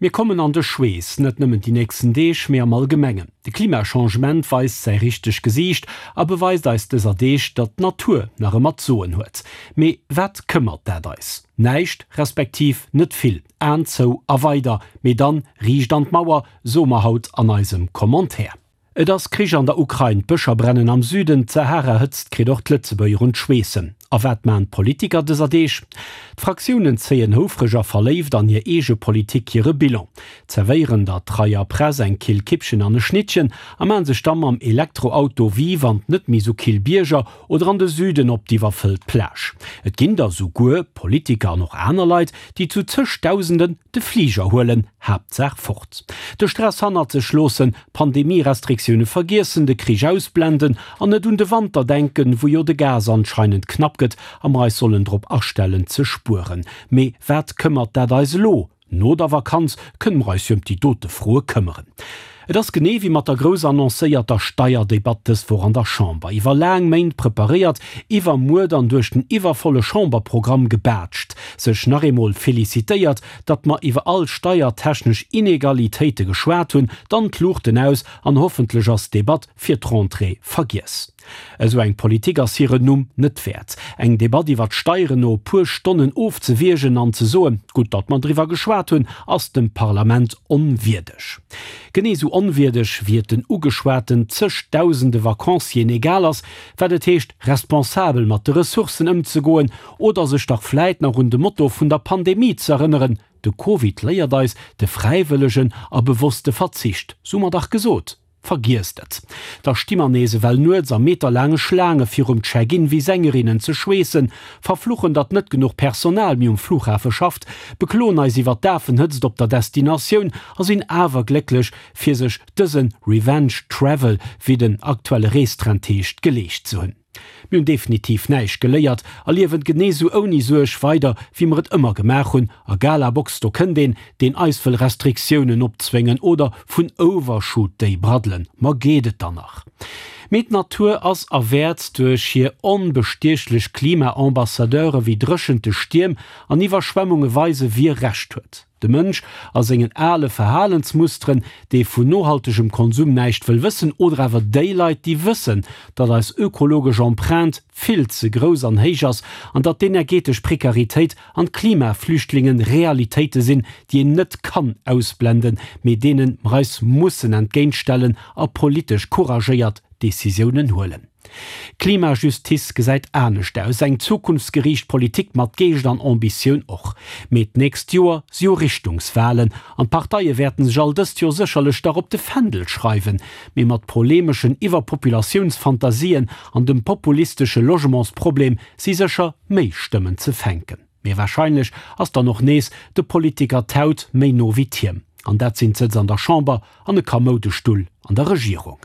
Mir kommen an de Schweess, net nëmmen déi nächsten Deeg, mee am Allgemengen. De Klimachangement weist säi richteg Gesiicht a beweist eis dëser Deeg, datt d'Natur nach ëmmer d'Soen huet. Mee wat këmmert dat eis? Näischt, respektiv net vill. Aen zou a weider, mee dann riicht an d'Mauer, soe mer haut an eisem Commentaire. Et ass Krich an der Ukrain, d'Bëscher brennen am Süden, d'Sahara-Hëtzt kritt och d'Lëtzebuerger un d'Schweessen. A wat maan d'Politiker dëser Deeg? D'Fraktiounen zéien houfreg a verléift an hir eege Politik hire Bilan, zerwéieren der treier Press eng kill Kippchen an e Schnittchen a maan sech da mam Elektroauto vive an d'net méi sou kill Bierger oder an de Süden op d'iwwerfëllt Plage. Et ginn der souguer, Politiker an och aner Leit, déi zu zëchdausenden de Fliger huelen, Haaptsaach fort. De Stress hannert sech loossen, d'Pandemie-Restriktioune vergiessen, de Krich ausblenden an net un de Wanter denken, wou jo de Gas anscheinend knapp gëtt a mer eis sollen drop astellen ze spueren. Mee wat këmmert dat eis elo? No der Vakanz kënne mer eis jo ëm déi dote Froe këmmeren. Et ass genee wéi mat der grouss annoncéierter Steierdebatt dës Woch an der Chamber. Iwwer laang Méint preparéiert, iwwer Muer dann duerch den iwwervolle Chamberprogramm gebaatscht, sech nach eemol felicitéiert, datt mer iwwer all steiertechnesch Inegalitéite geschwat hunn, dann d'Luuchten aus an hoffentlech ass d'Debatt fir d'Rentrée vergiess. Esou eng Politik ass hiren Numm net wäert. Eng Debatt iwwer d'Steieren no e puer Stonnen ofzewiergen an ze soen, gutt datt mer driwwer geschwat hunn, ass dem Parlament onwierdeg. Genee esou onwierdeg wéi et den ugeschwaten zegdausende Vacancieren egal ass, wat et heescht responsabel mat de Ressourcen ëmzegoen oder sech dach vläit nach un de Motto vun der Pandemie z'erënneren, De Covid léiert eis de fräiwëllegen a bewosste Verzicht, sou mer dach gesot. Vergiesst et! Da sti mer nees ewell nuets a meterlaange Schlaange virum Check-in wéi Sängerinnen ze schweessen, verfluchen, datt net genuch Personal méi um Flughafe schafft, bekloen eis iwwer d'Afenhëtzt op der Destinatioun a sinn awer glécklech, fir sech dëse Revenge Travel, wéi den aktuelle Reestrend heescht, geleescht ze hunn. Mir hunn definitiv näischt geléiert a liewen genee sou ouni Suerg weider wéi mer et ëmmer gemaach hunn. A Galabox, do kënnt een, deen eis wëll Restriktiounen opzwéngen oder vun Overshoot Day braddelen. Ma geet et dann nach? Mee d'Natur ass a wäert duerch hir onbestiechlech Klima-Ambassadeure wéi Dréchente, Stierm an Iwwerschwemmunge weise wie Recht huet. De Mënsch a sengen ale Verhalensmusteren, dee vun nohaltegem Konsum näischt wëll wëssen, oder awer déi Leit, déi wëssen, datt eis ökologesch Empreinte vill ze grouss an héich ass an datt d'energetesch Prekaritéit an d'Klimaflüchtlingen Realitéite sinn, déi een net kann ausblenden, mee deene mer eis mussen entgéintstellen a politesch couragéiert Decisiounen huelen. Klimajustiz gesäit anescht aus, eng zukunftsgeriicht Politik mat Geescht an Ambitioun och. Mee d'nächst Joer si jo Richtungswalen an d'Parteie wäerten sech all dëst Joer sécherlech dach op de Fändel schreiwen. Mee mat polemeschen Iwwerpopulatiounsfantasien an dem populistesche Logementsproblem si sécher méi Stëmmen ze fänken. Mee warscheinlech ass dann och nees de Politiker d'Haut méi no wéi d'Hiem. An dat sinn d'Sëtz an der Chamber an e kamoude Stull an der Regierung.